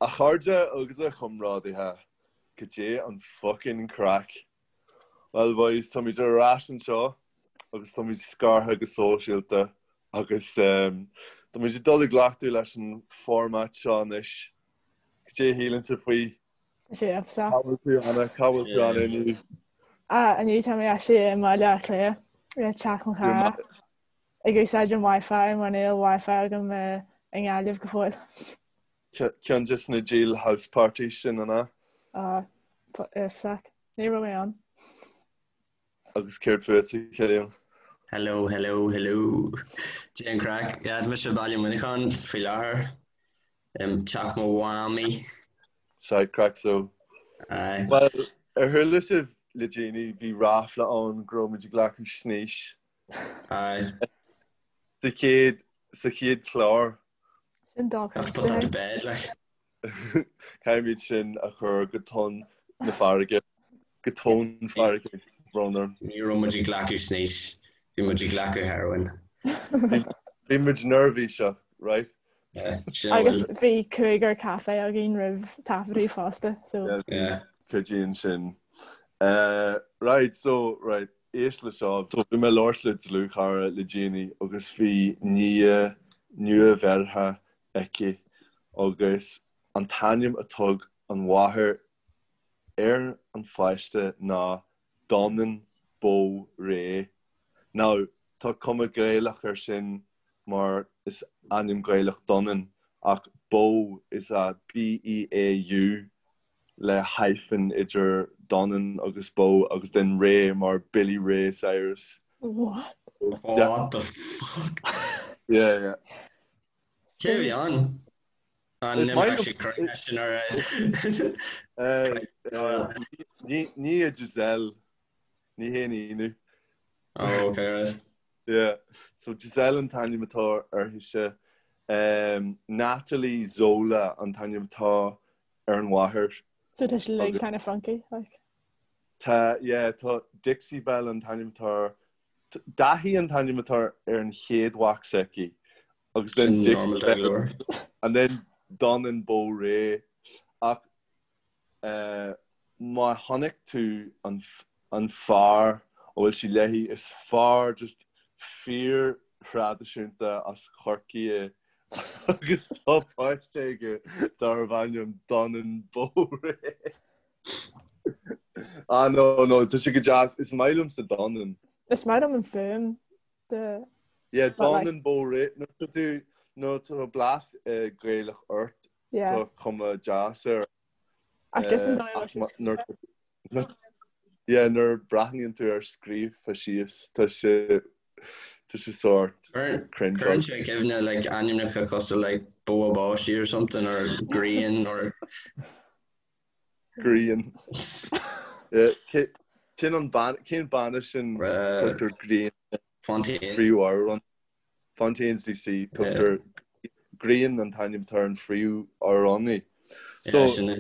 A chairde agus a chomrádaithe, cad é an fucking craic? Well boys, táimid ar ais anseo agus táimid scartha go sóisialta agus táimid ag dul i gcleachtadh leis an format seo anois. Cad é a shíleann sibh faoi? Tá sé epsach. Cá bhfuil tú Anna? Cá bhfuil tú Anna inniu? Ah, inniu tá mé actually i mBaile Átha Cliath, i teach mo chara, ag úsáid an Wi-Fi mar níl Wi-Fi agam i nGaillimh go fóill. Ceann de na deal house parties sin, an ea? Ah, epsach. Ní raibh mé ann. Agus céard fútsa, Cillian? Hello, hello, hello. Cad é an craic. Yeah, tá mise i Baile Muineacháin faoi láthair. Teach mo mhamaí. Shite craic so. Aye. Well, ar chuala sibh le déanaí, bhí ráfla ann go raibh muid ag glacadh snaois. Aye. Sa chéad, sa chéad chlár. Sin Have to put that to bed, like. Caithfimid sin a chur go tonn na farraige, go tóin farraige, brón orm. Ní raibh muid ag glacadh snaois, bhí muid ag glacadh heroin. Bhí muid neirbhíseach, right? Agus bhí cúigear caife againn roimh taifeadadh fosta, so. Yeah, cuidíonn sin. Right, so, right, éist le seo. So bhí mé ag labhairt le dlúthchara le déanaí agus bhí nia nua-bheirthe aici agus an t-ainm a thug an mháthair ar an pháiste ná Donan Beau Ray. Now, tá cuma Gaelach air sin mar is ainm Gaelach Donan ach Beau is ea B-E-A-U le hyphen idir Donan agus Beau agus then Ray mar Billy Ray Cyrus. What? What the fuck? Yeah, yeah. Cé a bhí ann? An Is maith imreoidh sé cruinne sin ar Ní hé Giselle. Ní haon ionadh. Oh, okay, right. Yeah. So Giselle an t-ainm atá uirthise. Um, Natalie Zola an t-ainm atá ar an mháthair. So tá sé like kind of funky, like. Tá, yeah, tá Dixie Belle an t-ainm atá ar Daithí an t-ainm atá ar an chéad mhac s'aici. Agus then Dixie Belle and then Donan Beau Ray. Ach eh, má chonaic tú an, an fear a bhfuil sí léi, is fear just fíor thraidisiúnta as Corcaigh é agus tá páiste aige darbh ainm Donan Beau Ray. Ah no, no, tá sé go deas. Is maith liomsa Donan. Is maith liom an fuaim de Yeah, but like Donan Beau Ray. Nuair tá tú, nuair tá blas eh, Gaelach ort, yeah. tá cuma deas air. Ach just an Eh, dóigh a ach bhfuil ma- sé nuair scríofa. nuair- yeah, nuair breathnaíonn tú air scríofa síos, tá sé tá sé sórt Cuireann cringeáilte. sé i gcuimhne like ainmneacha cosúil like bó báistí or something or grian or Grian. Cén an ban, cén banna sin tugtar Grian Fontaines. Phríomhamhrán. Fontaines DC tugtar Grian an t-ainm atá ar an phríomhamhránaí. So sin é.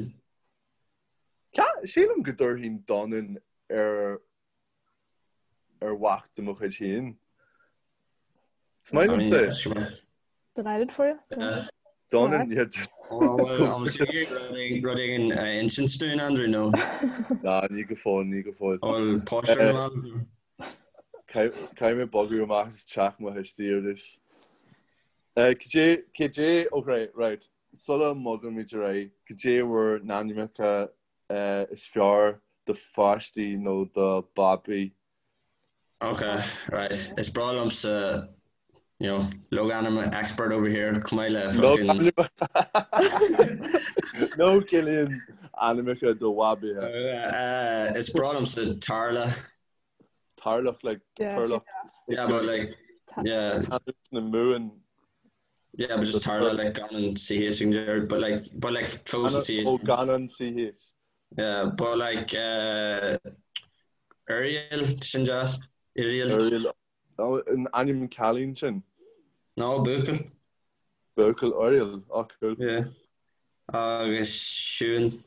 Sílim go dtabharfainn Donan ar ar mhac de mo chuid féin. Is maith liomsa é. Delighted for you. Donan, yeah. Rud éigin a insint dúinn, Andrew, nó? Ná, ní go fóill, ní go fóill. Bhfuil páiste ar an mball? Caithfidh mé bogadh amach as teach mo thuistí ar dtús. Cad é, cad é, ok, right, sula mbogaimid ar aghaidh, cad é bhur n-ainmneacha is fearr do pháistí nó do babaí. Ok, right. Is breá liomsa, you know, logainm expert over here, chomh maith le fucking... Logainm. No, Cillian, ainmneacha do bhabaithe. Uh, is breá liomsa Tarla. Tarlach, like, Turlach. Yeah, but like, yeah. Na Mumhan. Yeah, but just Tarla, like, gan an CH in there, but like, but like, fós an CH. Oh, gan an CH. Yeah, but like, uh, Uriel, sin deas, Uriel. Uriel, oh, an ainm cailín sin? No, buachaill. Buachaill Uriel, oh cool. Yeah. Agus Siún.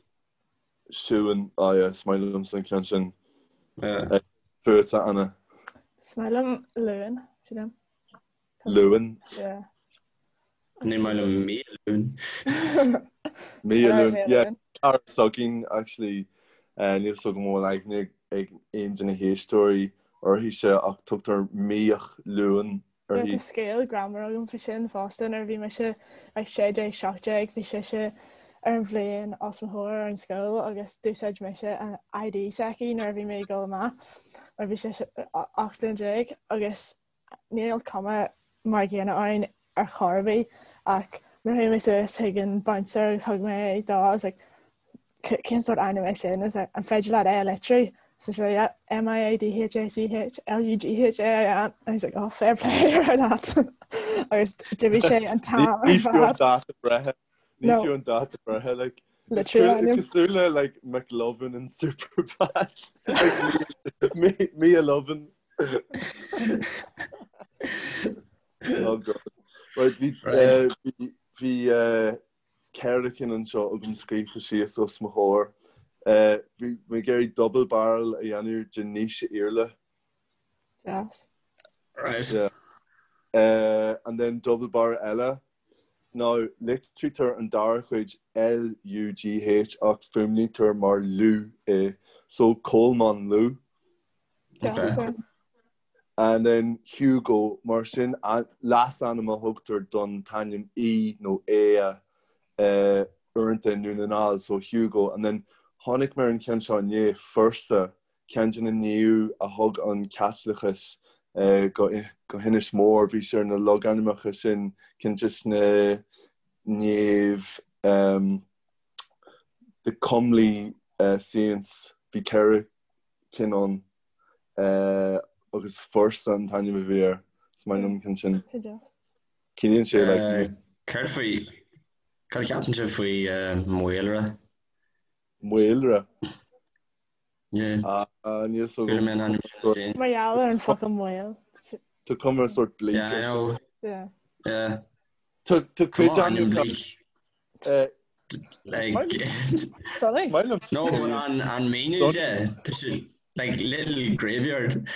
Siún, oh yeah, is maith liomsa an ceann sin. Yeah. Fútsa, Anna. Is maith liom Luan, sílim. Luan. Yeah. Ní maith liom mí Luan. Mia Luain, yeah. Cara s'againn, actually, níl 's agam an bhfuil aithne ag aon de na héisteoirí uirthise ach tugtar Miach Luain uirthi. Tá scéal greannmhar agam faoi sin fosta, nuair a bhí mise like 16, 17 bhí sise ar an bhliain os mo chomhair ar an scoil agus d'úsáid mise an ID s'aici nuair a bhí mé ag dul amach mar bhí sise 18 bhliain agus Níl cuma mar an gcéanna orainn ar chor ar bith ach nuair a chuaigh mé suas chuig an bouncer agus thug mé é dó I was like cén sórt ainm é sin? I was like an féidir leat é a litriú? So she's like yeah M-I-A-D-H-A-C-H L-U-G-H-A-I-N and he's like oh fair play ar leat agus d'imigh sé an t-am ar Ní fiú an dáta breithe Ní fiú an dáta breithe like Litriú ainm. Cosúil le like McLovin in Superbad like Mia Lovin Oh God. Right, bhí eh, bhí bhí eh, ceithre cinn anseo agam scríofa síos os mo chomhair. Eh, bhí mé ag iarraidh double barrel a dhéanamh de Naoise Iarla. Deas. Right. Yeah. Eh, and then double barrel eile. Now, litrítear an dara cuid L-U-G-H ach fuaimnítear mar Lú é. So Colmán Lú. Okay. And then Hugo, mar sin leasainm a thugtar don t-ainm Aodh nó Aodh uaireanta i nDún na nGall, so Hugo. And then tháinig mé ar an cheann seo inné, Fursa, ceann de na naoimh a thug an Caitliceachas go hInis Mór. Bhí sé ar na logainmneacha sin, ceann de na naoimh, the comely saints, bhí 4 cinn ann agus Fursa an t-ainm a bhí air. Is maith liom an ceann sin. Ciallaíonn sé like. Céard faoi, cad a cheapann sibh faoi Maolra? Maolra? Yeah. Níl 's agam. Chuala mé an ainm sin féin. Mar gheall ar an focal maol. Tá cuma sort bleak Yeah, I know. Yeah. Yeah. Tá cuid Come on, ainm ainmneacha bleak. Is Like, maith liom Sorry. is maith liom no, but an, an míniú de, tá sé, like, little graveyard,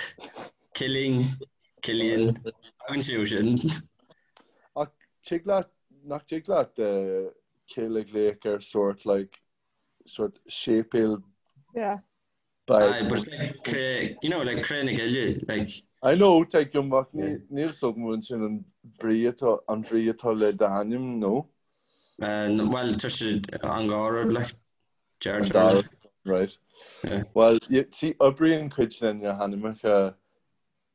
Killing, Killian, tagann sé ó sin. Ach tig leat, nach dtig leat cill a ghlaoch ar sort like sort séipéal Yeah. beag. Aye, but it's like cré, you know, like Cré na Cille, like. I know, tuigim, ach níl 's agam an sin an brí atá, an bhrí atá le d'ainm, nó? Well, tá sé an dhá rud, like, An dá rud, right. Yeah. Well, see, oibríonn cuid de na hainmneacha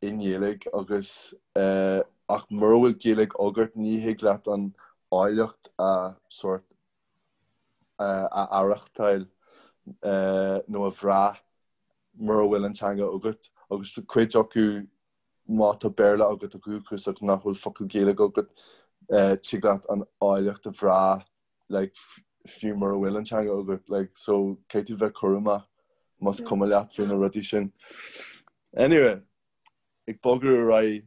i nGaeilge agus ach mura bhfuil Gaeilge agat ní thig leat an áilleacht a sort a aireachtáil nó a bhrath mura bhfuil an teanga agat agus cuid acu má tá Béarla agat ó dhúchas ach nach bhfuil focal Gaeilge agat tig leat an áilleacht a bhrath like fiú mura bhfuil an teanga agat like so caithfidh tú bheith cúramach más cuma leat faoi na rudaí sin. Anyway, ag bogadh ar aghaidh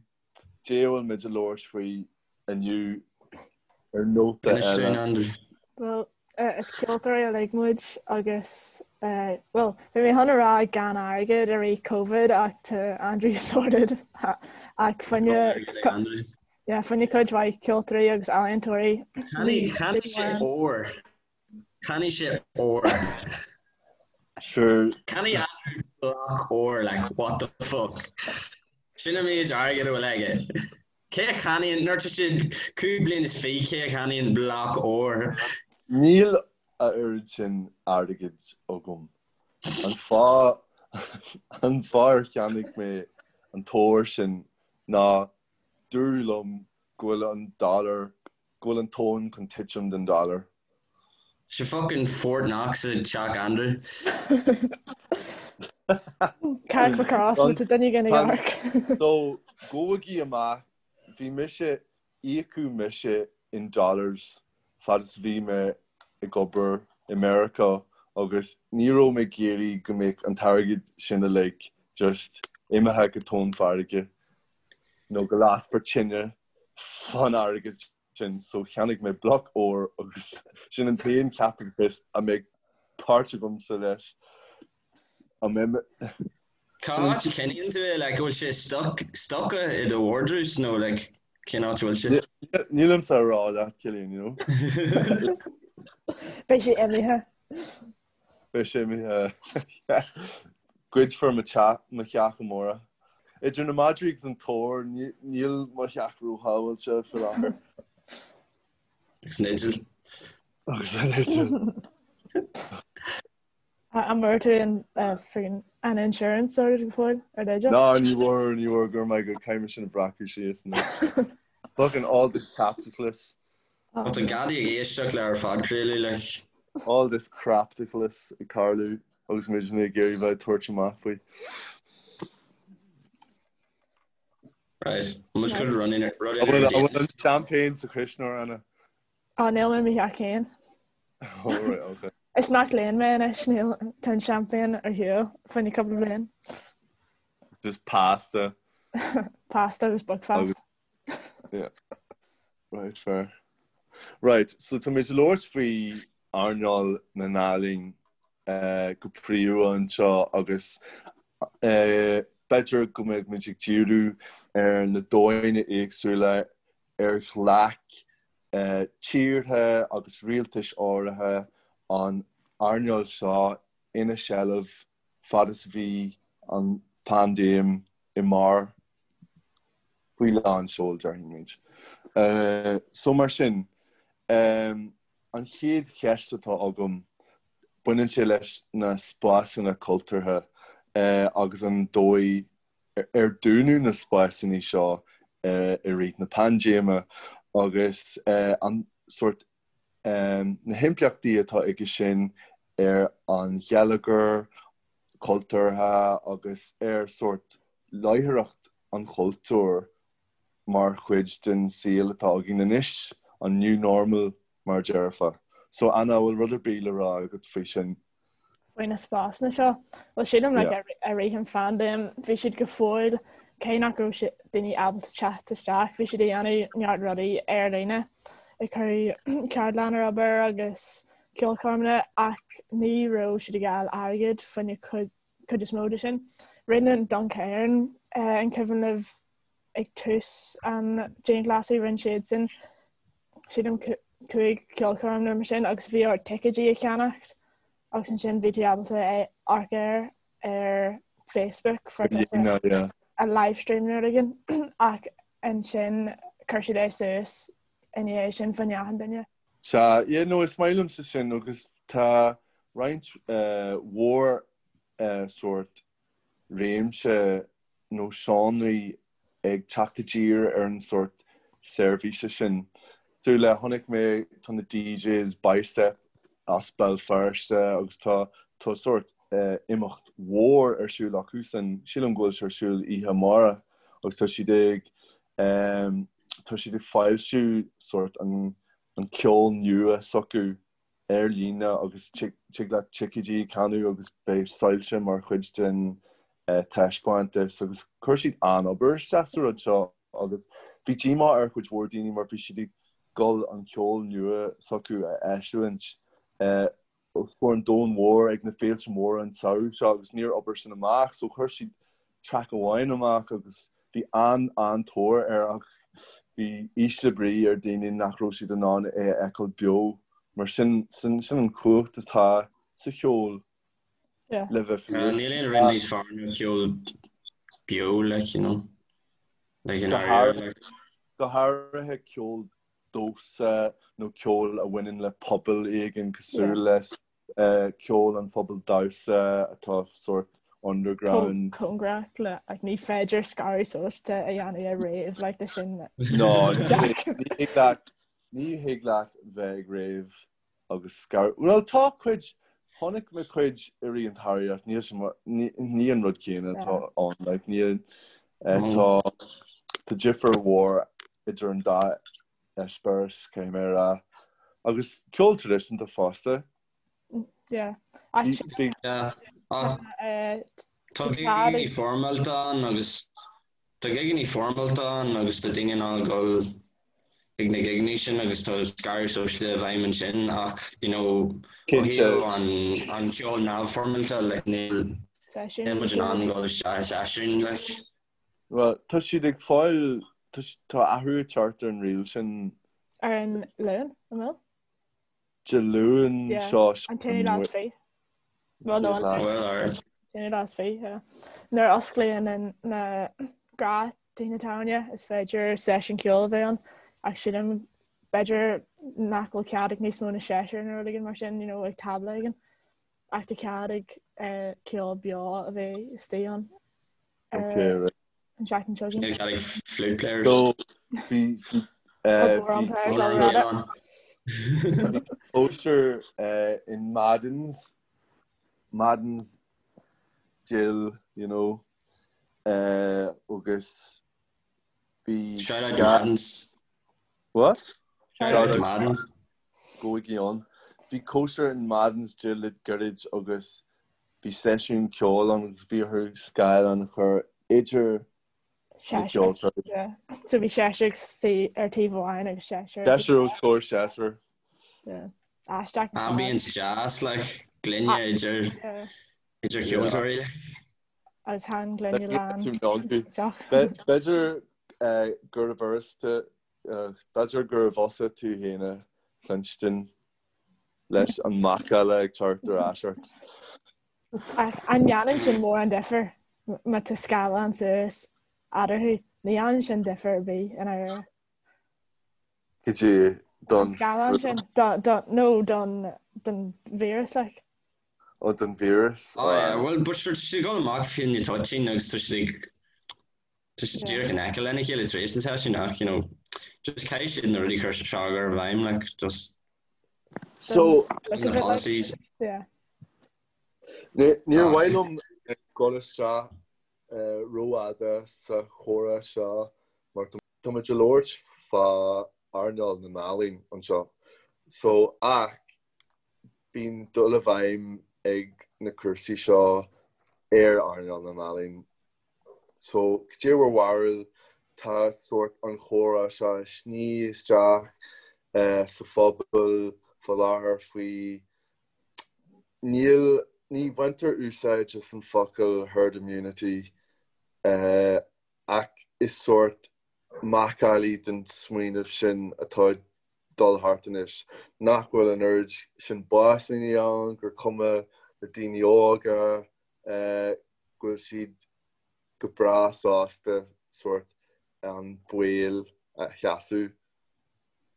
Dé a bhfuil muid ag labhairt faoi inniu ar nóta Inis dúinn, eile. Andrew. Bhuel, is ceoltóirí uilig muid agus, bhuel, bhí mé chun a rá gan airgead i rith Covid ach tá Andrew sorted ach fá choinne, yeah, fá choinne cuid mhaith ceoltóirí agus ealaíontóirí. Cheannaigh cheannaigh sé ór. Cheannaigh sé ór. Sure. Cheannaigh Andrew block óir, like, what the fuck? Sin an méid airgid a bhfuil aige. Cé a cheannaíonn, nuair atá siad 25 bliain, cé a cheannaíonn block óir? Níl a oiread sin airgid agam. An fáth, an fáth ar cheannaigh mé an t-ór sin ná dúradh liom go bhfuil an dollar go bhfuil an tóin chun titim den dollar. Sé fucking Fort Knox i dteach Andrew. Carrickmacross má tá duine éigin ag amharc. So, gabhaigí amach, bhí mise, íocadh mise in dollars fad is a bhí mé ag obair i Meiriceá agus ní raibh mé ag iarraidh go mbeadh an t-airgead sin uilig just imithe go tóin farraige nó go lasfar tine fán airgead sin so cheannaigh mé bloc óir agus sin an t-aon chaipitleachas a mbeidh páirt agamsa leis. An mbeidh mé. Cá háit a choinníonn tú é? Like, bhfuil sé stuck, stoca i do vardrús nó like, cén áit a bhfuil sé? Nílimse a rá leat, Cillian, you know. Beidh sé imithe. Beidh sé imithe. Goidfear mo theach amárach. Idir na madraí agus an t-ór, níl mo theach róshábháilte faoi láthair. Agus an fhidil. Agus an fhidil. An bhfuair tú an friggin an insurance sorted go fóill ar d'fhidil? Ná ní bhfuair, ní bhfuair go raibh maith agat, caithfidh mé sin a bhreacadh síos anois. Fucking all this capitalists. Tá an gadaí ag éisteacht le ár phodchraoladh like. All this craptacalas ag tarlú agus muidne ag iarraidh bheith ag tabhairt amach faoi. Right, muid chun running An bhfuil an champagne sa chuisneoir, Anna? Á, níl i mo theach féin. Oh, right, okay. Is mac léinn mé anois, níl tá an champagne ar shiúl fá choinne cúpla bliain. Just pasta. Pasta agus Buckfast. Yeah. Right, fair. Right, so tá muid ag labhairt faoi earnáil na n-ealaíon eh, go príomha anseo agus eh, b'fhéidir go mbeidh muid ag díriú ar na dóigheanna éagsúla ar ghlac eh, tíortha agus rialtais áirithe an earnáil seo ina seilbh fad is a bhí an phaindéim i mbarr faoi lán seoil, déarfaidh muid. So mar sin, an chéad cheist atá agam, baineann sé leis na spásanna cultúrtha agus an dóigh ar dúnadh na spásanna seo i rith na paindéime agus an sórt na himpleachtaí atá aige sin ar an gheilleagar cultúrtha agus ar sórt láithreacht an chultúir mar chuid den saol atá againn anois, an new normal mar a déarfá. So Anna, an bhfuil rud ar bith le rá agat faoi sin? Faoi na spásanna seo? Bhuel sílim like i rith an phaindéim bhí siad go fóill cé nach raibh siad daoine ábalta teacht isteach bhí siad ag déanamh neart rudaí ar líne ag cur ceardlann ar obair agus ceolchoirmeanna ach ní raibh siad ag fháil airgead fá choinne cuid cuid is mó de sin. Rinne an Duncairn an cuimhin libh ag tús an dianghlasáil rinne siad sin sílim 5 ceolchoirm nó mar sin agus bhí ort ticéidí a cheannacht agus ansin bhí tú ábalta é amharc air ar Facebook for a live stream nó rud éigin ach ansin chuir siad é suas i ndiaidh sin fá choinne achan duine. Sea, yeah, no, is maith liomsa sin agus tá roinnt mhór sórt réimse nó seánraí ag teacht i dtír ar an sórt seirbhíse sin. Cosúil le, chonaic mé, tá na DJs Bicep as Béal Feirste agus tá tá sórt imeacht mhór ar siúl acusan, sílim go bhfuil sé ar siúl oíche amárach agus tá siad ag tá siad ag foilsiú sórt an an ceol nua s'acu ar líne agus tig leat ticéidí a cheannú agus beidh soilse mar chuid den taispeántas agus chuir siad an-obair isteach sa rud seo agus bhí díomá ar chuid mhór daoine mar bhí siad ag dul an ceol nua s'acu a eisiúint os comhair an domhain mhóir ag na féilte móra an tsamhradh seo agus níor obair sin amach so chuir siad track amháin amach agus bhí an-an-tóir air ach bhí ísle brí ar daoine nach raibh siad in ann é a fheiceáil beo mar sin sin an chumhacht atá sa cheol le bheith fíor. Níl aon rud níos fearr ná ceol beo like you know like in Go háirithe ceol damhsa nó ceol a bhaineann le pobal éigin cosúil le ceol an phobail damhsa atá sórt underground. Cóngarach le like ní féidir scaradh sóisialta a dhéanamh ar rave like de sin. No, ní thig leat ní thig leat bheith ag rave agus scaradh. Well tá cuid chonaic mé cuid i rith an tsamhraidh ach níl sé mar ní an rud céanna atá ann like níl tá tá difear mhór idir an dá eispéireas, caithfidh mé a rá. Agus ceol traidisiúnta fosta. Yeah. Tá gigeanna foirmeálta ann agus tá gigeanna foirmeálta ann agus tá daoine in ann dul ag na gigeanna sin agus tá scaradh sóisialta i bhfeidhm ansin ach you know ó thaobh an an ceol neamhfhoirmeálta like níl níl muid in ann dul isteach i seisiún like. Bhuel, tá siad ag fáil, tá athrú ag teacht ar an riail sin. Ar an Luan, an bhfuil? Dé Luain seo. An t-aonú lá is fi. Well no an t-aonú lá is fi, yeah. Nuair a osclaíonn na gnáth-tithe tábhairne is féidir seisiún ceoil a bheith ann ach sílim b'fhéidir nach bhfuil cead ag níos mó na seisear nó rud éigin mar sin, you know, ag tábla éigin. Ach tá cead ag ceol beo a bheith istigh ann. Okay, right. An seachtain seo chugainn. Cead ag flute players. So, bhí bhí cóisir in Madden's Madden's Jill, you know, agus bhí Shout out to Madden's. What? Shout out to Madden's. Gabhaigí ann. Bhí cóisir in Madden's Jill le gairid agus bhí seisiún ceoil ann agus bhí orthu scáileán a chur idir na ceoltóirí. Yeah. So bhí seisear ag suí ar taobh amháin agus seisear. Seisear os comhair seisear. Yeah. Aisteach. Ambience deas, like, gloine idir idir cheoltóirí. Like. Agus tá an gloine lán. B'fhéidir gurbh fhurasta B'fhéidir gurbh fhusa tú féin a chluinstin leis an macalla ag teacht ar ais ort. Ach an ndéanann sin mórán difear má tá scáileán suas eatarthu? Ní dhéanann sin difear ar bith i ndáiríre. Cad é don. An scáileán sin, nó don víreas, like. Ó, don víreas. Oh yeah, well, but sure, tá siad ag dul amach fá choinne toitín agus tá siad ag Tá siad díreach in aice lena chéile tar éis na seisiún ach, you know, just caithfidh siad na rudaí cur seo a chur i bhfeidhm, like, just So, na policies. Yeah. Níor mhaith liom dul isteach rófhada sa chomhrá seo mar tá muid ag labhairt fá earnáil na n-ealaíon anseo. So, ach bíonn dul i bhfeidhm ag na cúrsaí seo ar earnáil na n-ealaíon So, cad é bhur bharúil, tá sórt an chomhrá seo ag sní isteach sa phobal fá láthair faoi, níl, ní bhaintear úsáid as an focal herd immunity ach is sórt macallaí den smaoineamh sin atá ag dul thart anois, nach bhfuil an oiread sin básanna ann, gur cuma le daoine óga, go bhfuil siad go breá sásta sórt an baol a sheasamh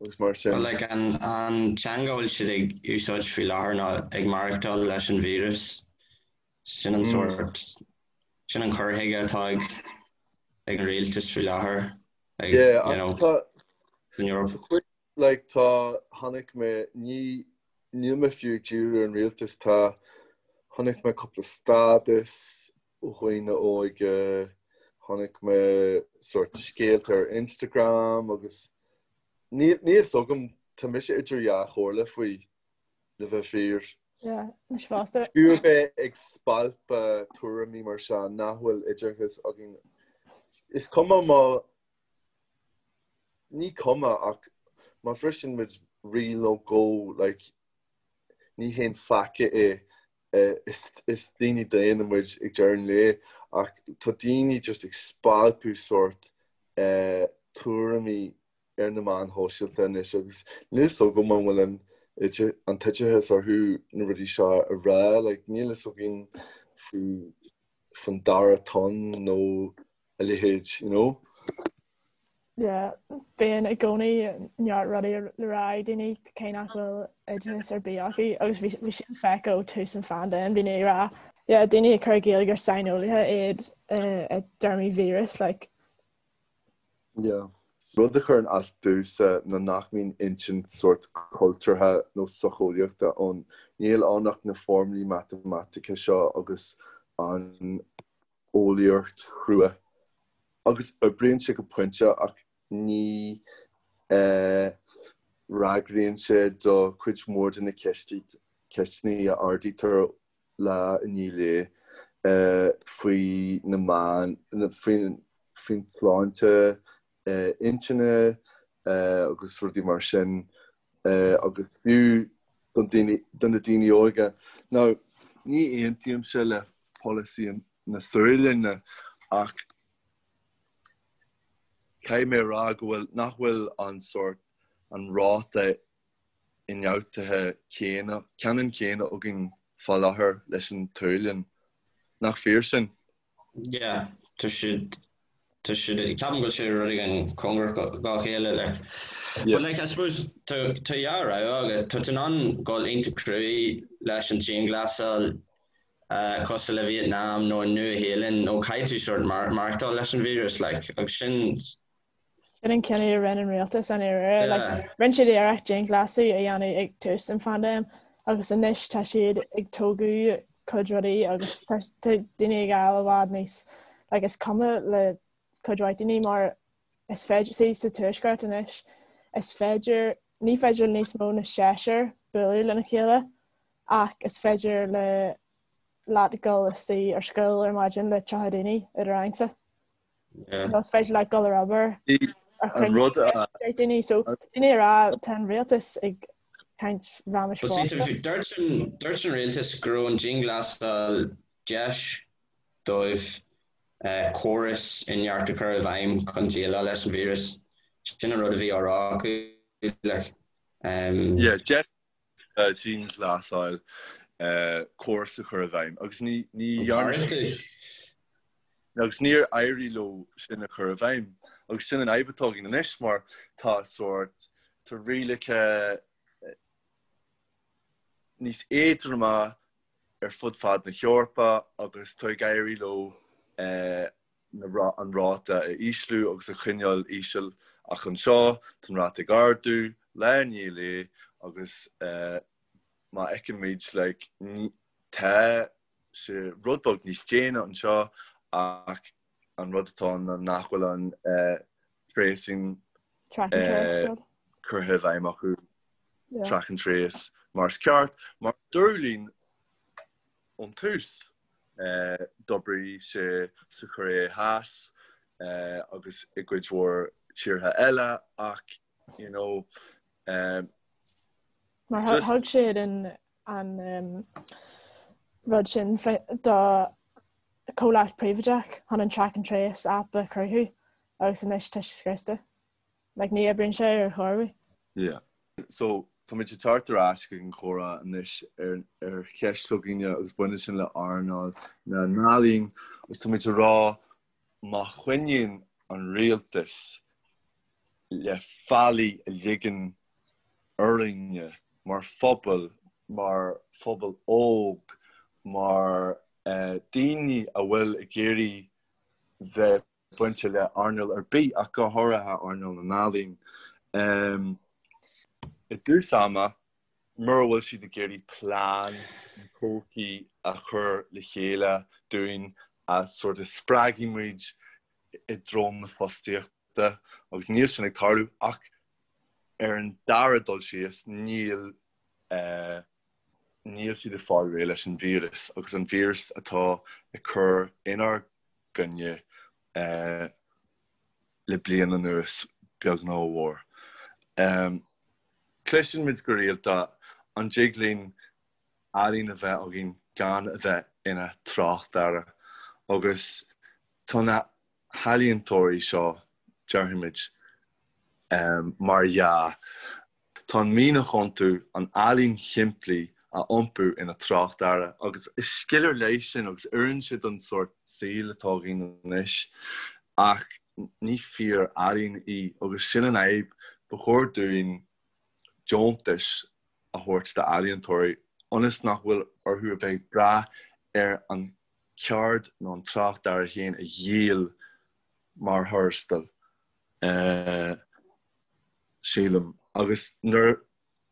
agus mar sin. Well like an an teanga a bhfuil siad ag úsáid faoi láthair ná ag maireachtáil leis an víreas. Sin an sórt, sin an cur chuige atá ag ag an rialtas faoi láthair ag Yeah, you know, san Eoraip. Like tá, chonaic mé, ní, níl mé fiú ag díriú ar an rialtas, tá, chonaic mé cúpla stádas ó dhaoine óige, chonaic mé sórt scéalta ar Instagram agus níl, níl fhios agam, tá mise idir dhá chomhairle faoi, le bheith fíor. Yeah, mise fosta. Fiú a bheith ag spalpadh tuairimí mar seo nach bhfuil oideachas againn. Is cuma má Ní cuma ach má bhriseann muid riail nó dhó like ní haon pheaca é. Is daoine daonna muid ag deireadh an lae ach tá daoine just ag spalpadh sórt tuairimí ar na meáin shóisialta anois agus níl fhios agam an bhfuil an an t-oideachas orthu na rudaí seo a rá like níl fhios againn faoi faoin dara tonn nó a leithéid, you know. Yeah, bíonn i gcónaí neart rudaí le rá ag daoine cé nach bhfuil oideachas ar bith acu agus bhí bhí sin feicthe ó tús an phaindéim, daoine ag rá yeah, daoine ag cur i gcéill gur saineolaithe iad i dtéarmaí víreas like. Yeah. Rud a chuireann as domhsa ná nach mbíonn insint sórt cultúrtha nó socheolaíochta ann. Níl ann ach na foirmlí matamaitice seo agus an eolaíocht chrua agus oibríonn sé go pointe ach ní fhreagraíonn sé do chuid mhór de na ceisteanna a ardaítear lá i ndiaidh lae faoi na meáin, faoin tsláinte intinne agus rudaí mar sin agus fiú do na daoine óga. Now, ní aontaímse le polasaí na Sualainne ach caithfidh mé a rá go bhfuil, nach bhfuil an sórt, an ráta. ionfhabhtuithe céanna, ceannann céanna againn fá láthair leis an tSualainn. Nach fíor sin? Yeah, tá siad, tá siad, ceapaim go bhfuil sé rud éigin cóngarach dá chéile, like. But like, I suppose, tá, tá dhá rogha agat, tá tú in ann dul iontach cruaidh leis an dianghlasáil, cosúil le Vietnam nó an Nua-Shéalainn, nó caithfidh tú sort maireachtáil leis an víreas, like, agus sin, Sin an cinneadh a rinne an rialtas i ndáiríre. Like, rinne siad iarracht dianghlasáil a dhéanamh ag tús an phaindéim agus anois tá siad ag tógadh cuid rudaí agus tá daoine ag fáil i bhfad níos like, is cuma le cuid mhaith daoine mar is féidir see, sa tuaisceart anois is féidir ní féidir le níos mó na seisear bualadh lena chéile ach is féidir le leat dul istigh ar scoil ar maidin le 30 daoine i do rangsa. Nó is féidir leat dul ar obair ar chruinniú daoine so daoine ag rá tá an rialtas ag caint raiméis fosta. Dúirt an rialtas go raibh an dianghlasáil deis dóibh córas inteacht a chur i bhfeidhm chun déileáil leis an víreas. Sin an rud a bhí á rá acu. Like. Yeah, deis dianghlasáil córas a chur i bhfeidhm agus ní dhearna siad agus níor éirigh leo sin a chur i bhfeidhm agus sin an fhadhb atá againn anois mar tá sórt tá rialacha níos éadroime ar fud fad na hEorpa agus tá ag éirí leo an ráta a ísliú agus a choinneáil íseal ach anseo tá an ráta ag ardú lá i ndiaidh lae agus má fheicimid like tá sé rud beag níos déine anseo ach an rud atá ann ná nach bhfuil an tracing curtha i bhfeidhm acu track and trace mar is ceart mar dúradh linn ón tús. D'oibrigh sé sa Chóiré Theas agus i gcuid mhór tíortha eile ach you know Mar thug siad an an rud sin do comhlacht príobháideach chun an track and trace app a chruthú agus anois tá sé scriosta. Like ní oibríonn sé ar chor ar bith. Yeah. So, táimid ag teacht ar ais chuig an chomhrá anois ar ar cheist s'againne agus baineann sin le earnáil na n-ealaíon agus táimid ag rá má choinníonn an rialtas le faillí a ligean orainne mar phobal, mar phobal óg, mar daoine a bhfuil ag iarraidh bheith bainte le earnáil ar bith ach go háirithe earnáil na n-ealaíon. I dtús ama, mura bhfuil siad ag iarraidh plean na todhchaí a chur le chéile dúinn a sort of spreagfaidh muid i dtreo na fostaíochta agus níl sin ag tarlú ach ar an dara dul síos níl níl siad ag fáil réidh leis an víreas agus an víreas atá ag cur inár gcoinne le bliain anuas, beag nó mhór. Cloiseann muid go rialta an dtig linn ealaín a bheith againn gan a bheith ina tráchtearra agus tá na healaíontóirí seo, déarfaimid, mar dhea. Tá an mianach iontu an ealaín shimplí a iompú ina tráchtearra agus is scil ar leith sin agus oireann sé don sórt saoil atá againn anois ach ní fíor-ealaín í agus sin an fhadhb. Ba chóir dúinn deontais a thabhairt d'ealaíontóirí ionas nach bhfuil orthu a bheith ag brath ar an cheird nó an tráchtearra féin a dhíol mar thuarastal, sílim. Agus nuair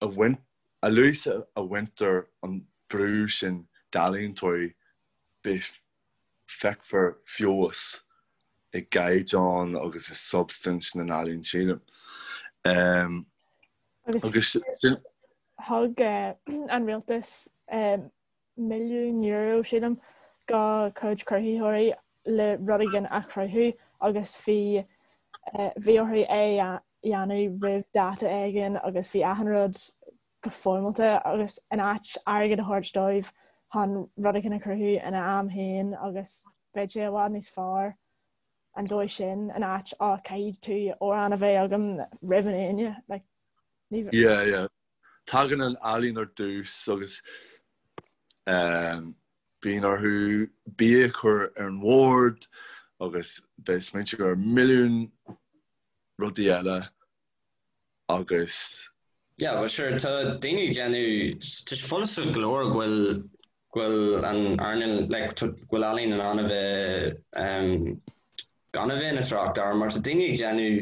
a bhain, a luaithe a bhaintear an brú sin d'ealaíontóirí, beidh, feicfear feabhas i gcaighdeán agus i substaint na n-ealaíon, sílim. Agus sin. Thug an rialtas €1,000,000, sílim, do chuid cruthaitheoirí le rud éigin a chruthú agus bhí bhí orthu é a dhéanamh roimh dáta éigin agus bhí achan rud go foirmeálta agus in áit airgead a thabhairt dóibh chun rud éigin a chruthú ina am féin agus beidh sé i bhfad níos fearr an dóigh sin in áit á caithfidh tú amhrán a bheith agam roimh an Aoine like ní Yeah yeah. Tagann an ealaín ar dtús agus bíonn orthu bia a chur ar an bhord agus bheith ag smaointiú ar milliún rudaí eile agus. Yeah, well sure, tá daoine ag déanamh, tá sé follasach go leor go bhfuil, go bhfuil an earnáil, like, go bhfuil ealaín in ann a bheith, um, gan a bheith ina thráchtearra mar tá daoine ag déanamh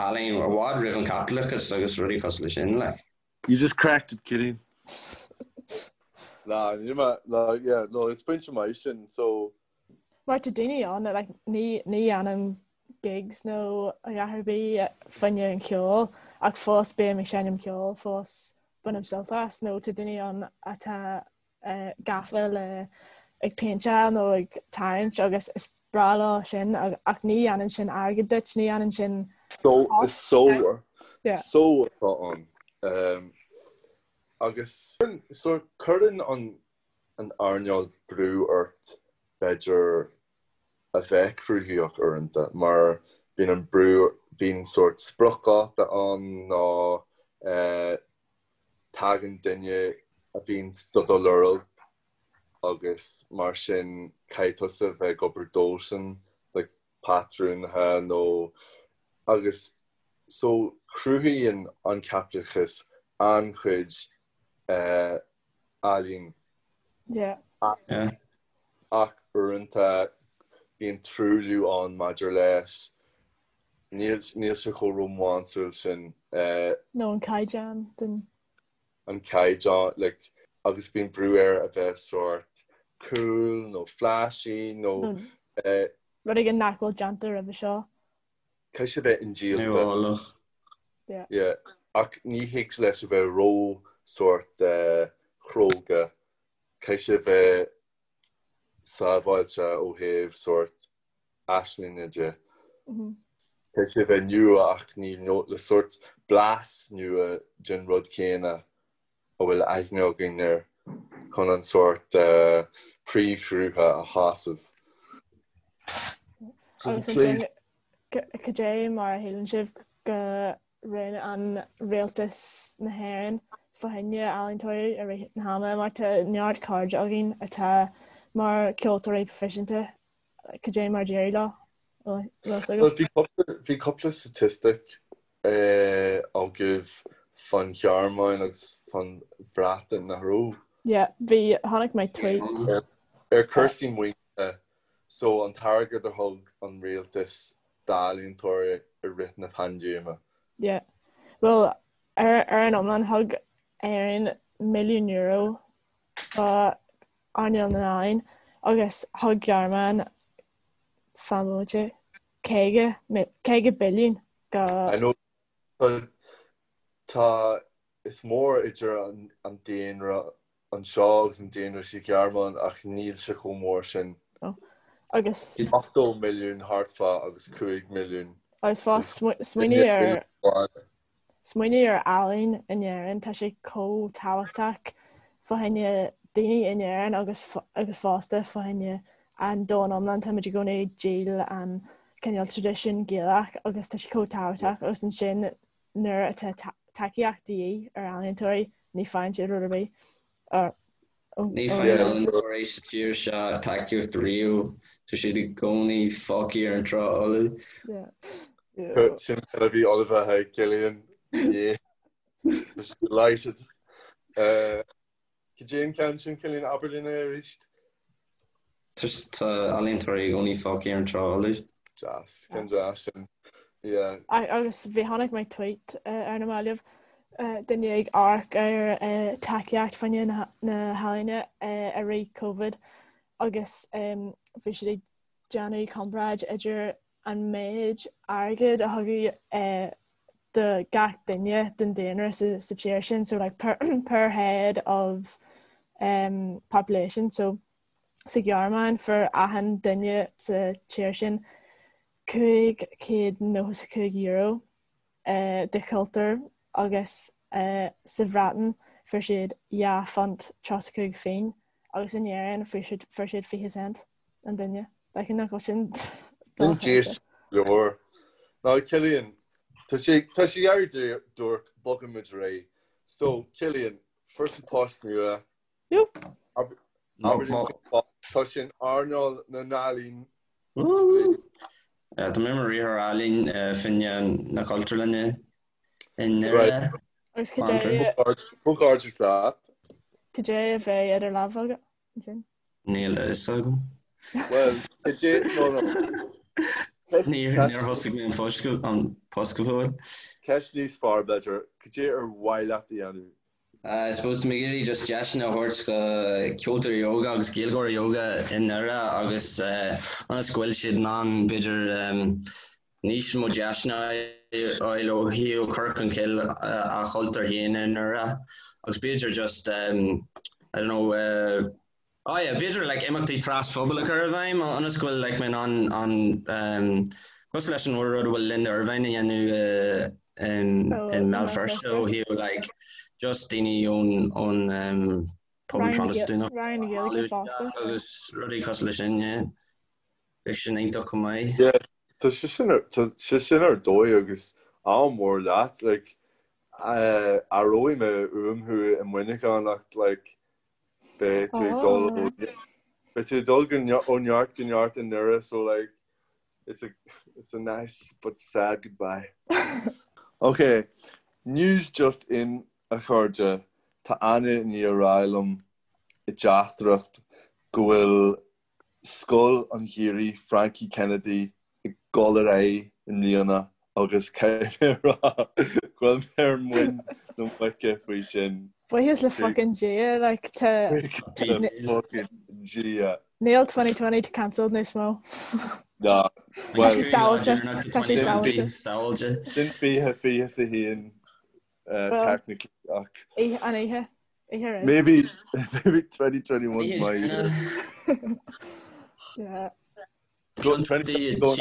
ealaín i bhfad roimh an chaipitleachas agus rudaí cosúil leis sin, like. You just cracked it, Cillian. Nah, níl mé, nah, yeah, no, is pointe maith sin, so. Mar tá daoine ann, like, ní, ní dhéanaim gigs nó a dhath ar bith fá choinne an cheoil ach fós bím ag seinm ceoil, fós bainim sult as nó tá daoine ann atá gafa le ag péinteáil nó ag tarraingt agus is breá leo sin ach ní dhéanann sin airgead duit, ní dhéanann sin So, is só só atá ann. Agus so cuireann an an earnáil brú ort b'fhéidir a bheith cruthaitheach uaireanta mar bíonn an brú, bíonn sórt spriocdháta ann nó tagann duine a bhíonn do do lorg agus mar sin caithfidh tusa a bheith ag obair dósan like patrúnaithe nó agus so cruthaíonn an caipitleachas an-chuid ealaín. Yeah. Ach uaireanta bíonn truailliú ann maidir leis. Níl níl sé chomh rómánsúil sin. Nó an caighdeán den. An caighdeán, like, agus bíonn brú air a bheith sórt cool nó flashy nó. Rud éigin nach bhfuil déanta roimhe seo. Caithfidh sé bheith indíolta. Nuálach. Yeah. Yeah. Ach ní thig leis a bheith ró sórt chróga. Caithfidh sé a bheith sábháilte ó thaobh sórt aislinge de. Caithfidh sé a bheith nua ach ní le sórt blas nua den rud céanna a bhfuil aithne againn air chun an sórt príomhshrutha a shásamh. Agus ansin, cad é mar a shíleann sibh go rinne an rialtas na hÉireann fá choinne ealaíontóirí i rith na hama mar tá neart cairde againn atá mar ceoltóirí proifisiúnta Cad é mar d'éirigh leo? Bhuel, bhí cúpla statistic agaibh fán Ghearmáin agus fán Bhreatain, nach raibh? Yeah, bhí, chonaic mé tweet. Ar cúrsaí maoinithe, so an t-airgead a thug an rialtas d'ealaíontóirí i rith na paindéime. Yeah. Bhuel, ar an iomlán thug Éirinn milliún euro do earnáil na n-ealaíon agus thug Gearmáin fan bomaite 50, 50 billiún go. I know but tá, is mór idir an daonra anseo agus an daonra sa Ghearmáin ach níl sé chomh mór sin. No. Agus. 80 milliún thart fá agus 5 milliún. Agus fós smaoinigh ar. Smaoinigh ar ealaín in Éirinn, tá sé chomh tábhachtach fá choinne daoine in Éirinn agus agus fosta fá choinne an domhan iomlán. Táimid i gcónaí ag díol an cineál traidisiún Gaelach agus tá sé chomh tábhachtach agus ansin nuair atá tacaíocht de dhíth ar ealaíontóirí ní faigheann siad rud ar bith. Ní faigheann ealaíontóirí sa tír seo tacaíocht riamh, tá siad i gcónaí fágtha ar an trá fholamh. Sin a bhí ullmhaithe ag Cillian inné. Delighted. Cad é an ceann sin, Cillian, abair linn é arís. Tá ealaíontóirí i gcónaí fágtha ar an trá fholamh. Deas, ceann deas sin. Yeah. Agus bhí chonaic mé tweet ar na mallaibh duine ag amharc ar tacaíocht fá choinne na healaíne i rith Covid agus bhí siad ag déanamh comparáid idir an méid airgid a thugadh do gach duine den daonra sa tír sin, so like per, per head of um, population, so sa Ghearmáin fuair achan duine sa tír sin €595 do chultúr agus sa Bhreatain fuair siad £2.35 phingin agus in Éirinn fuair siad 20 cent an duine. Like nach bhfuil sin Sin deas leor. Now Cillian, tá sé tá sé ag éirí duairc, bogfaidh muid ar aghaidh. So, Cillian, fuair tú post nua. Tá sé in earnáil na n-ealaíon. Tá mé mar riarthóir ealaíon fá choinne na Cultúrlainne i nDoire. Agus cad é Comhghairdeas leat. Cad é a bheidh idir lámha agat ansin? Níl a fhios agam. Bhuel, cad é no no. Níor thosaigh mé an post go fóill. Ceist níos fearr b'fhéidir, cad é ar mhaith leat a dhéanamh? I suppose tá mé ag iarraidh just deiseanna a thabhairt do cheoltóirí óga agus Gaeilgeoirí óga i nDoire agus ionas go bhfuil siad in ann b'fhéidir níos mó deiseanna a fháil ó thaobh cur chun cinn a chultúr féin i nDoire agus b'fhéidir just I don't know Oh yeah, b'fhéidir like imeachtaí trasphobail a chur i bhfeidhm ionas go bhfuil like mé in ann an um, cosúil leis an rud a bhfuil Linda Ervine a dhéanamh in Oh, in mBéal Feirste ó thaobh like just daoine ón ón um, pobal Protastúnach Roinn na Gaeilge fosta. agus rudaí cosúil leis sin, yeah. Bheadh sin iontach chomh maith. Yeah, tá sé sin ar tá sé sin ar dóigh agus ádh mór leat like uh, aireoidh mé uaim thú i Muineachán ach like Beidh tú ag dul ó beidh tú ag dul go ó neart go neart i nDoire so like it's a it's a nice but sad goodbye. Ok, news just in a chairde, tá Anna i ndiaidh a rá liom i dteachtaireacht go bhfuil Scoil an Gheimhridh Frankie Kennedy ag dul ar aghaidh i mbliana agus caithfidh mé a rá go bhfuil mé ar muin na muice faoi sin. Buíochas le fucking Dia, like tá Buíochas le fucking Dia. Níl 2020 cancelled níos mó. Ná, Tá sé sábháilte, tá sé sábháilte. Sábháilte. Sin 2021 technically ach. An oíche. Oíche roimh. Maybe maybe 2021 my year. Yeah. Go 20 Tá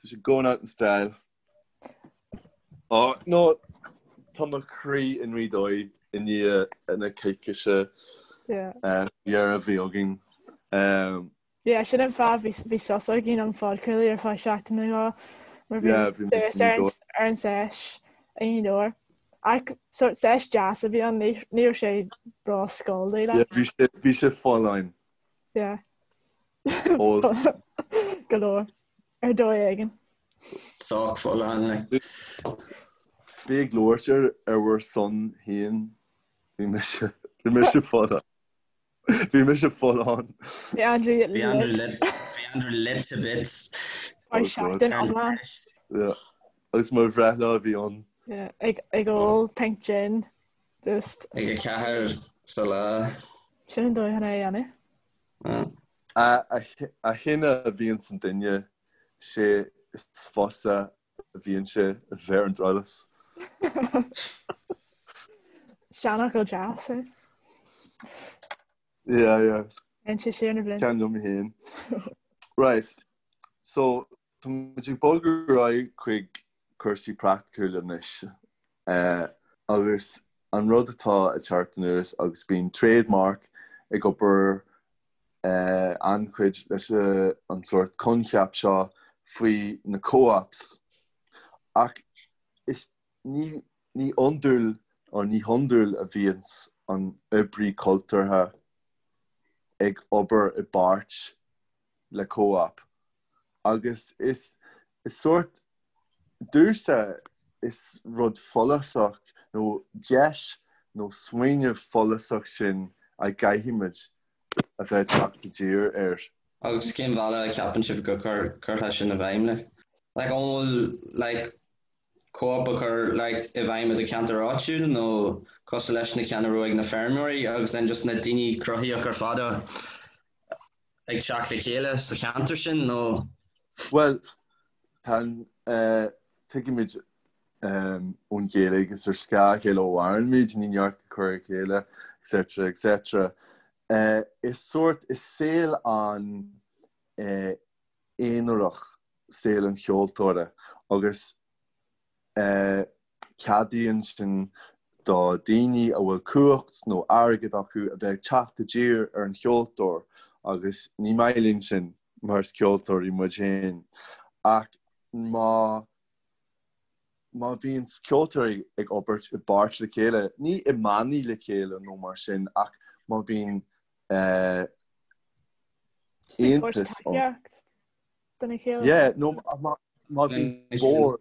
sé going out in style. Oh, no, tá mo chroí i nGaoth Dobhair i ndiaidh na coicíse dheireadh a bhí againn. Um, Yeah, sin an fáth bhí bhí sos againn ón phodchraoladh ar feadh seachtain nó dhó mar bhí Yeah, bhí muid turas ar an ar an seis i nGaoth Dobhair. Ach sort seis deas a bhí ann, ní ní raibh sé ró-scalding Yeah, bhí sé bhí sé folláin. Yeah. Ól. Go leor. Ar dóigh éigin. Sách folláin, like. Bí ag labhairt ar ar bhur son féin. Bhí mise bhí mise folláin. Bhí mise folláin. Bhí Andrew Bhí Andrew lit. Bhí Andrew lit to bits. Ar seachtain iomlán. Yeah. Agus mo bhreithlá a bhí ann. Yeah, ag ag ól pint gin. Just. Ag a ceathair sa lá. Sin an dóigh chun é a dhéanamh. A a shine a bhíonns an duine, sé is fusa a bhíonn sé a bheith ar an drabhlás. Seanfhocal deas é. Yeah, yeah. Téann sé siar na blianta. Ceann liom féin. Right. So, tá muid ag bogadh ar aghaidh chuig cúrsaí praiticiúla anois. Uh, agus an rud atá ag teacht anuas agus bíonn Trademark ag obair an-chuid leis an sórt coincheap seo faoi na co-ops ach is ní ní iondúil or ní hiondúil a bhíonns an oibrí cultúrtha ag obair i bpáirt le co-op agus is is sórt domhsa is rud follasach nó deis nó smaoineamh follasach sin a gcaithfimid a bheith ag teacht i dtír air. Agus cén bhealach a cheapann sibh go gcuirfeá sin i bhfeidhm like? Like an bhfuil like co-op a chur like i bhfeidhm i do cheantar áitiúil nó cosúil leis na ceanna a raibh ag na feirmeoirí agus then just na daoine cruthaitheach ar fad a ag teacht le chéile sa cheantar sin nó? Bhuel, tá an, tuigimid ón Ghaeilge is ar scáth a chéile a mhairimid, ní neart go cur a chéile, etc. etc. Is sórt, is saol an-aonarach saol an cheoltóra agus Ceadaíonn sin do daoine a bhfuil cumhacht nó airgead acu a bheith ag teacht i dtír ar an cheoltóir agus ní maith linn sin mar is ceoltóirí muid féin. Ach má. Má bhíonn ceoltóirí ag obair i bpáirt le chéile, ní i mbannaí le chéile nó mar sin, ach má bhíonn aontas ann. Yeah, nó má bhíonn bord,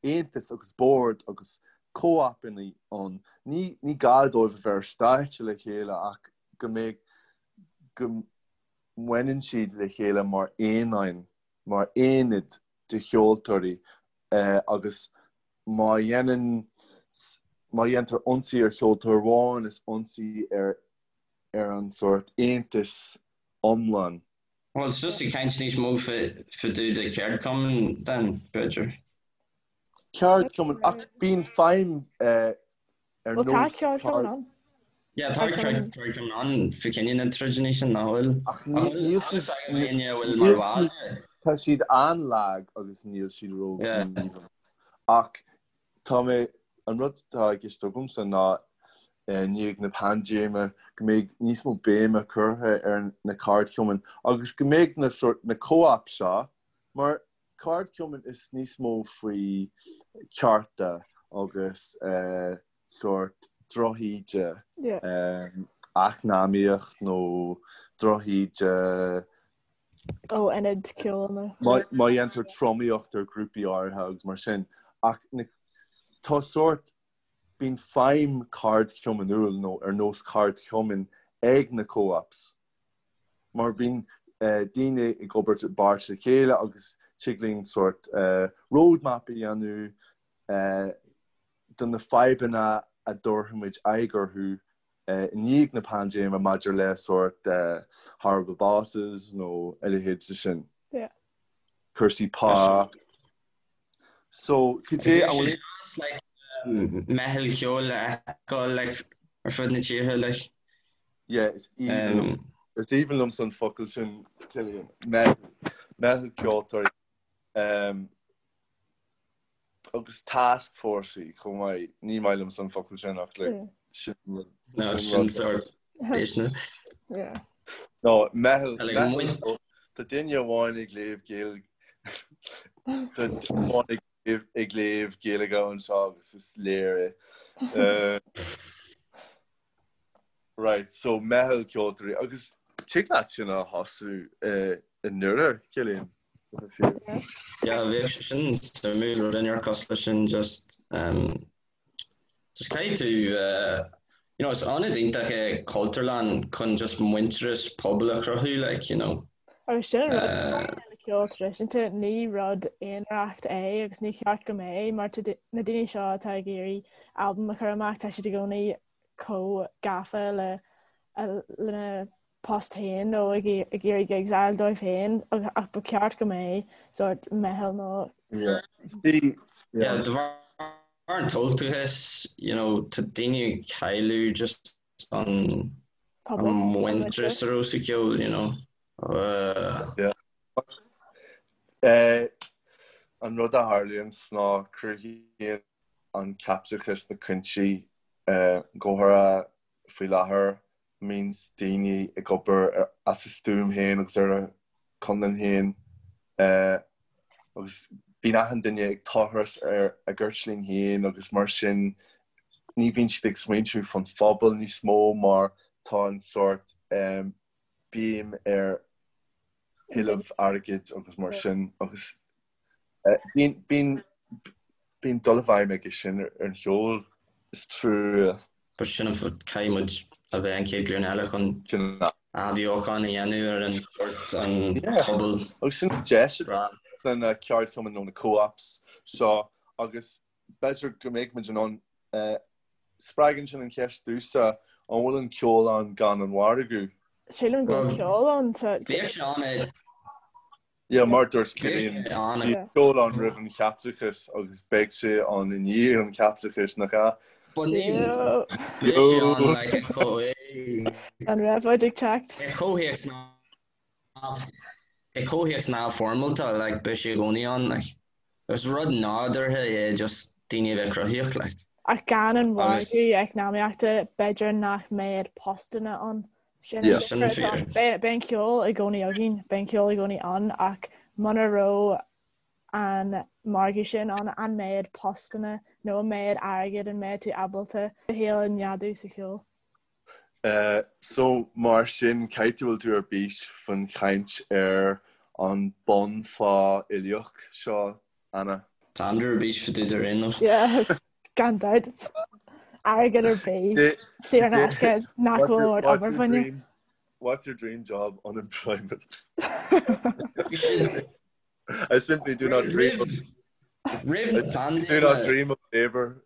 aontas agus bord agus co-opanna ann, ní gá dóibh a bheith ar stáitse le chéile ach go mbeidh, go mbaineann siad le chéile mar aonáin, mar aonad de cheoltóirí agus má dhéanann, má dhéantar ionsaí ar cheoltóir amháin is ionsaí ar ar an sórt aontas iomlán. Bhuel, it's just ag caint níos mó fá dtaobh de cheardchumann then, b'fhéidir. Ceardchumann, ach bíonn feidhm ar nós. Bhuel, tá ceardchumann ann. Yeah, tá ceardchumann ann fá choinne na troideanna sin, nach bhfuil? Ach níl siad, tá siad an-lag agus níl siad róghníomhach. Ach Tá mé, an rud atá i gceist agamsa ná i ndiaidh na paindéime go mbeidh níos mó béime curtha ar na ceardchumainn agus go mbeidh na sórt, na co-ops seo, mar ceardchumann is níos mó faoi chearta agus sórt drochíde, eacnamaíocht nó drochíde, ó ionad ceoil nó. Má dhéantar tromaíocht ar ghrúpaí áirithe agus mar sin. Ach tá sórt, bíonn feidhm ceardchumannúil nó ar nós ceardchumainn ag na co-ops. Mar bíonn daoine ag obair i bpáirt le chéile agus tig linn sórt roadmap a dhéanamh do na fadhbanna a dtabharfaimid aghaidh orthu i ndiaidh na paindéime maidir le sórt horrible bosses nó a leithéid de sin. Yeah. Cúrsaí pá. So, cad é an bhfuil like meitheal ceoil a fheiceáil like ar fud na tíortha like. Yeah, is aoibhinn liom is aoibhinn liomsa an focal sin Cillian. Meitheal meitheal ceoltóirí. Um, Agus task force chomh maith. Ní maith liomsa an focal sin ach like sin rud. No, sin sórt déisteanach. Yeah. No, meitheal, meitheal, tá duine amháin ag léamh Gaeilge, tá duine amháin ag léamh Gaeilge anseo agus is léir é. Right, so meitheal ceoltóirí agus tig leat sin a thosú i nDoire, Cillian. Yeah, bheadh sé sin suimiúil rud inteacht cosúil leis sin just um, just caithfidh tú uh, you know, is ionad iontach é Cultúrlann chun just muintearas pobail a chruthú like, you know. Agus sin an rud uh, le ceol traidisiúnta ní rud aonarach é agus ní cheart go mbeadh mar tá na daoine seo atá ag iarraidh albam a chur amach tá siad i gcónaí chomh gafa le lena post féin nó ag iarraidh gigs a fháil dóibh féin ach ba cheart go mbeadh sórt meitheal nó Yeah, de bharr an tomhaltachais, you know, tá daoine ag cailleadh just an muintearas a raibh sa cheol, you know. Uh, yeah. Uh, an rud a tharlaíonn ná cruthaíonn an caipitleachas na cúinsí uh, go háirithe faoi láthair a mbíonns daoine ag obair as a stuaim féin agus ar a conlán féin agus bíonn achan duine ag tochras ar a gceirtlín féin agus mar sin ní bhíonn siad ag smaointiú fán phobal níos mó mar tá an sórt béim ar thuilleamh airgid agus mar sin agus Bíonn, bíonn, bíonn dul i bhfeidhm aige sin ar an cheol, is trua. But sin an fáth caithfidh muid a bheith an chéad ghlúin eile chun athbheochan a dhéanamh ar an sórt an pobal. Agus sin deis atá sna ceardchumainn nó na co-ops seo agus b'fhéidir go mbeidh muid in ann spreagann sin an cheist domhsa, an bhfuil an ceol ann gan an mhargadh? Sílim go bhfuil ceol ann. Bhíodh sé ann i Yeah, mar dúirt Cillian, bhí ceol ann roimh an chaipitleachas agus beidh sé ann i ndiaidh an chaipitleachais, nach ea? But níl. Bhí sé ann like i gcomh- An réabhlóid ag teacht. I gcomhthéacs i gcomhthéacs neamhfhoirmeálta, like, beidh sé i gcónaí ann, like. Is rud nádúrtha é just daoine a bheith cruthaíoch, like. Ach gan an margadh eacnamaíochta, b'fhéidir nach mbeadh postanna ann. Sin Yeah. Sin fíor. Beidh an ceol i gcónaí againn, beidh an ceol i gcónaí ann ach muna raibh an margadh sin ann, an méid postanna nó an méid airgid an mbeidh tú ábalta do shaol a neadú sa cheol. So, mar sin, caithfidh go bhfuil tú ar bís faoin chaint ar an bunphá uilíoch seo, Anna? Tá Andrew ar bís fá dtaobh de ar aon nós. Yeah, gan dabht. Airgead ar bith, saor in aisce, nach bhfuil ort obair fá choinne. What's your dream job? Unemployment. I simply do not dream of Roimh na paindéime. Do not dream of labour.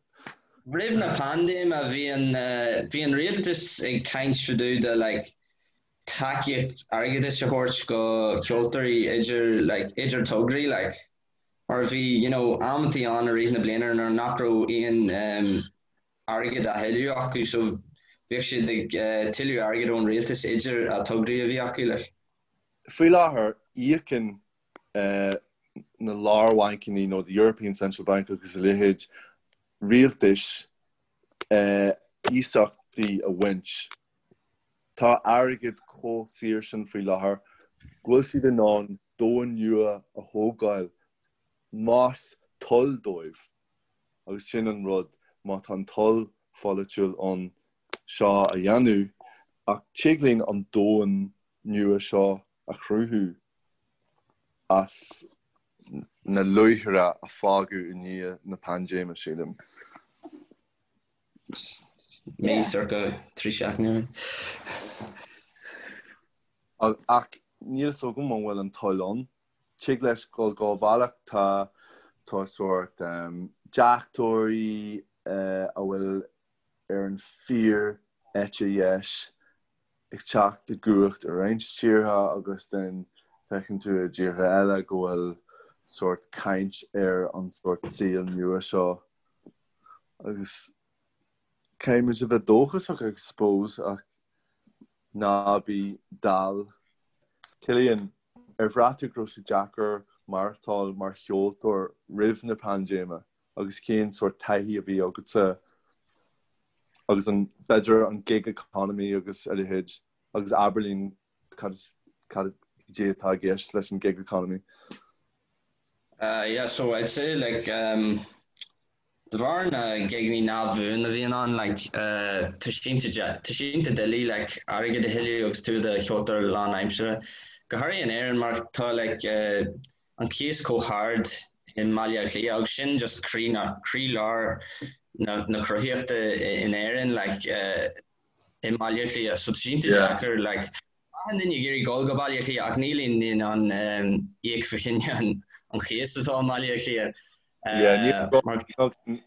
Roimh na paindéime bhí an bhí an rialtas ag caint fá dtaobh de like tacaíocht airgeadais a thabhairt go ceoltóirí idir like idir tograí like mar bhí you know amantaí ann i rith na bliana nuair nach raibh aon um, airgead á thuilleamh acu so bhíodh siad ag uh, tuilleamh airgead ón rialtas idir a tograí a bhí acu like. Faoi láthair, íocann na lár-bhancanna nó the European Central Bank agus a leithéid rialtais iasachtaí a bhaint. Tá airgead chomh saor sin faoi láthair go bhfuil siad in ann domhan nua a thógáil más toil dóibh. Agus sin an rud, má tá an toil pholaitiúil ann seo a dhéanamh, ach tig linn an domhan nua seo a chruthú as na luaithre a fágadh i ndiaidh na paindéime, sílim. Mí circa 3 seachtaine. Ach níl fhios agam an bhfuil an toil ann. Tig leis dul dhá bhealach. Tá tá sórt deachtóirí a bhfuil ar an fíor eite dheis ag teacht i gcumhacht i roinnt tíortha agus then feiceann tú i dtíortha eile go bhfuil sórt caint ar an sórt saol nua seo agus caithfidh muid a bheith dóchasach I suppose ach ná bí dall. Cillian, ar bhraith tú go raibh sé deacair maireachtáil mar cheoltóir roimh na paindéime? agus cén sórt taithí a bhí agatsa agus an, b'fhéidir an gig economy agus a leithéid agus abair linn cad is, cad é atá i gceist leis an gig economy. Uh, yeah, so I'd say like um, de bharr na gigeanna neamhbhuan a bhíonn ann like uh, tá sé tá sé iontach doiligh like airgead a thuilleamh agus tú i do cheoltóir lánaimseartha. Go háirithe in Éirinn mar tá like uh, an cíos chomh hard i mBaile Átha Cliath agus sin just croí na, croílár na, na cruthaitheachta in Éirinn like i mBaile Átha Cliath. So tá sé iontach deacair like achan duine ag iarraidh dul go Baile Átha Cliath ach níl aon duine in ann um, íoc fá choinne an, an chíos atá i mBaile Átha Cliath. Yeah,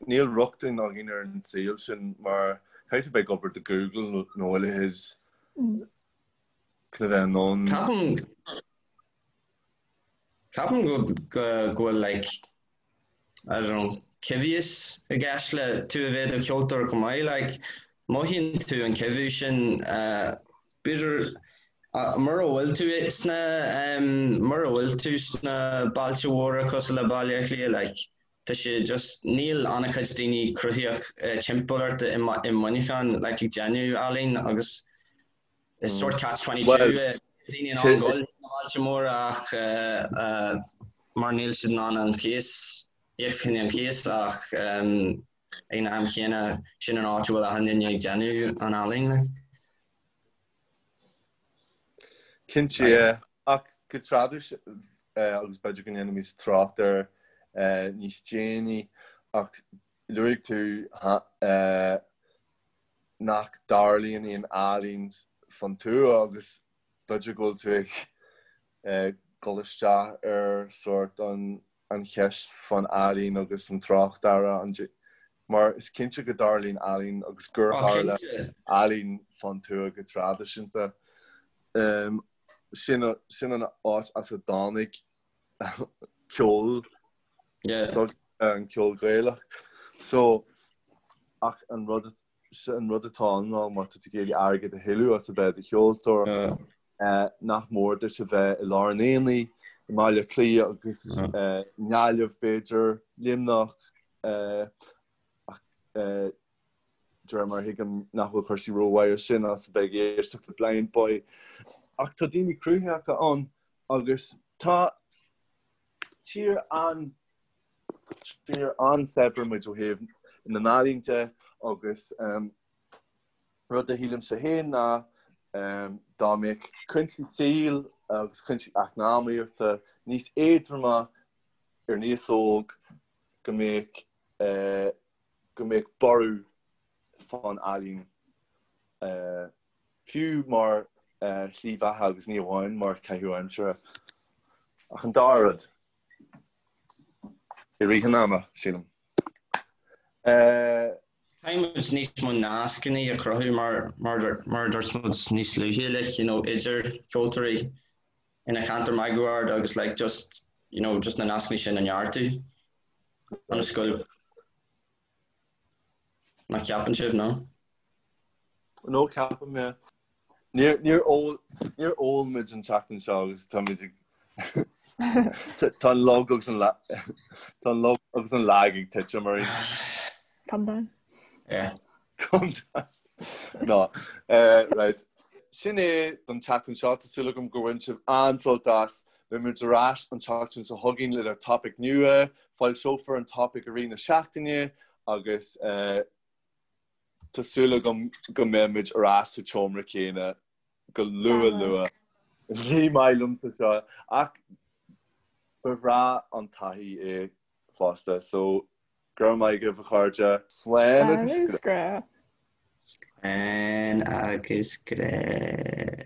níl rochtain againn ar an saol sin mar caithfidh tú bheith ag obair do Google nó a leithéid chun a bheith in ann. Ceapaim Ceapaim go go bhfuil like I don't know coimhthíos i gceist le tú a bheith i do cheoltóir chomh maith like mothaíonn tú an coimhthiú sin uh, b'fhéidir uh, mura bhfuil tú sna um, mura bhfuil tú sna bailte mhóra cosúil le Baile Átha Cliath like tá sé just níl an-chuid daoine cruthaitheach uh, timpeall ort i, i Muineachán like ag déanamh ealaín agus Is sórt catch 22 é. Daoine in ann dul na bailte móra ach mar níl siad in ann an cíos, íoc fá choinne an chíos ach ag an am chéanna sin an áit a bhfuil achan duine ag déanamh an ealaín like. Cinnte, yeah. Ach go traidisiúnta, agus b'fhéidir go ndéanfaimid trácht air níos déanaí, ach luaigh tú nach dtarlaíonn aon ealaín fán tuath agus b'fhéidir go bhfuil tú ag dul isteach ar sórt an cheist fán ealaín agus an tráchtearra mar is cinnte go dtarlaíonn ealaín agus gur tharla ealaín fán tuath go traidisiúnta. Sin sin an áit as a dtáinig ceol so an ceol Gaelach. So ach an rud an rud atá ann ná má tá tú ag iarraidh airgead a thuilleamh as a bheith i do cheoltóir, nach mór duit a bheith i lár an aonaigh, i mBaile Átha Cliath agus i nGaillimh b'fhéidir, Luimneach, ach de réir mar a thuigim nach bhfuil cúrsaí rómhaith ansin as a bheith ag éisteacht le Blindboy. Ach tá daoine cruthaitheacha ann agus tá tír an. Tír an-saibhir muid ó thaobh na n-ealaíon de agus rud a shílimse féin ná dá mbeadh cúinsí saoil agus cúinsí eacnamaíochta níos éadroma ar an aos óg go mbeadh go mbeadh borradh fán ealaín fiú mar shlí bheatha agus ní amháin mar chaitheamh aimsire ach an dá rud. I rith an ama, sílim. Caithfidh muid níos mó nascanna a chruthú mar mar a dúirt muid níos luaithe like you know idir ceoltóirí ina cheantar máguaird agus like just you know just na nascanna sin a neartú ionas go Nach ceapann sibh, no? No, ceapaim, yeah. Níor, níor ól, níor ól muid an tseachtain seo agus táimid ag Tá an lug agus an tá an lug agus an lag ag titim orainn. Calm down. Yeah. Calm down. No. Uh, right. Sin é don tseachtain seo tá súil agam gur bhain sibh an-sult as. Beidh muid ar ais an tseachtain seo chugainn lenár topaic nua, foilseofar an topaic i rith na seachtaine agus uh, Tá súil agam go mbeidh muid ar ais sa tseomra céanna go luath luath. Ní maith liomsa seo ach ba bhreá an taithí é fosta so go raibh maith agaibh a chairde. Slán agus grá. Slán agus grá.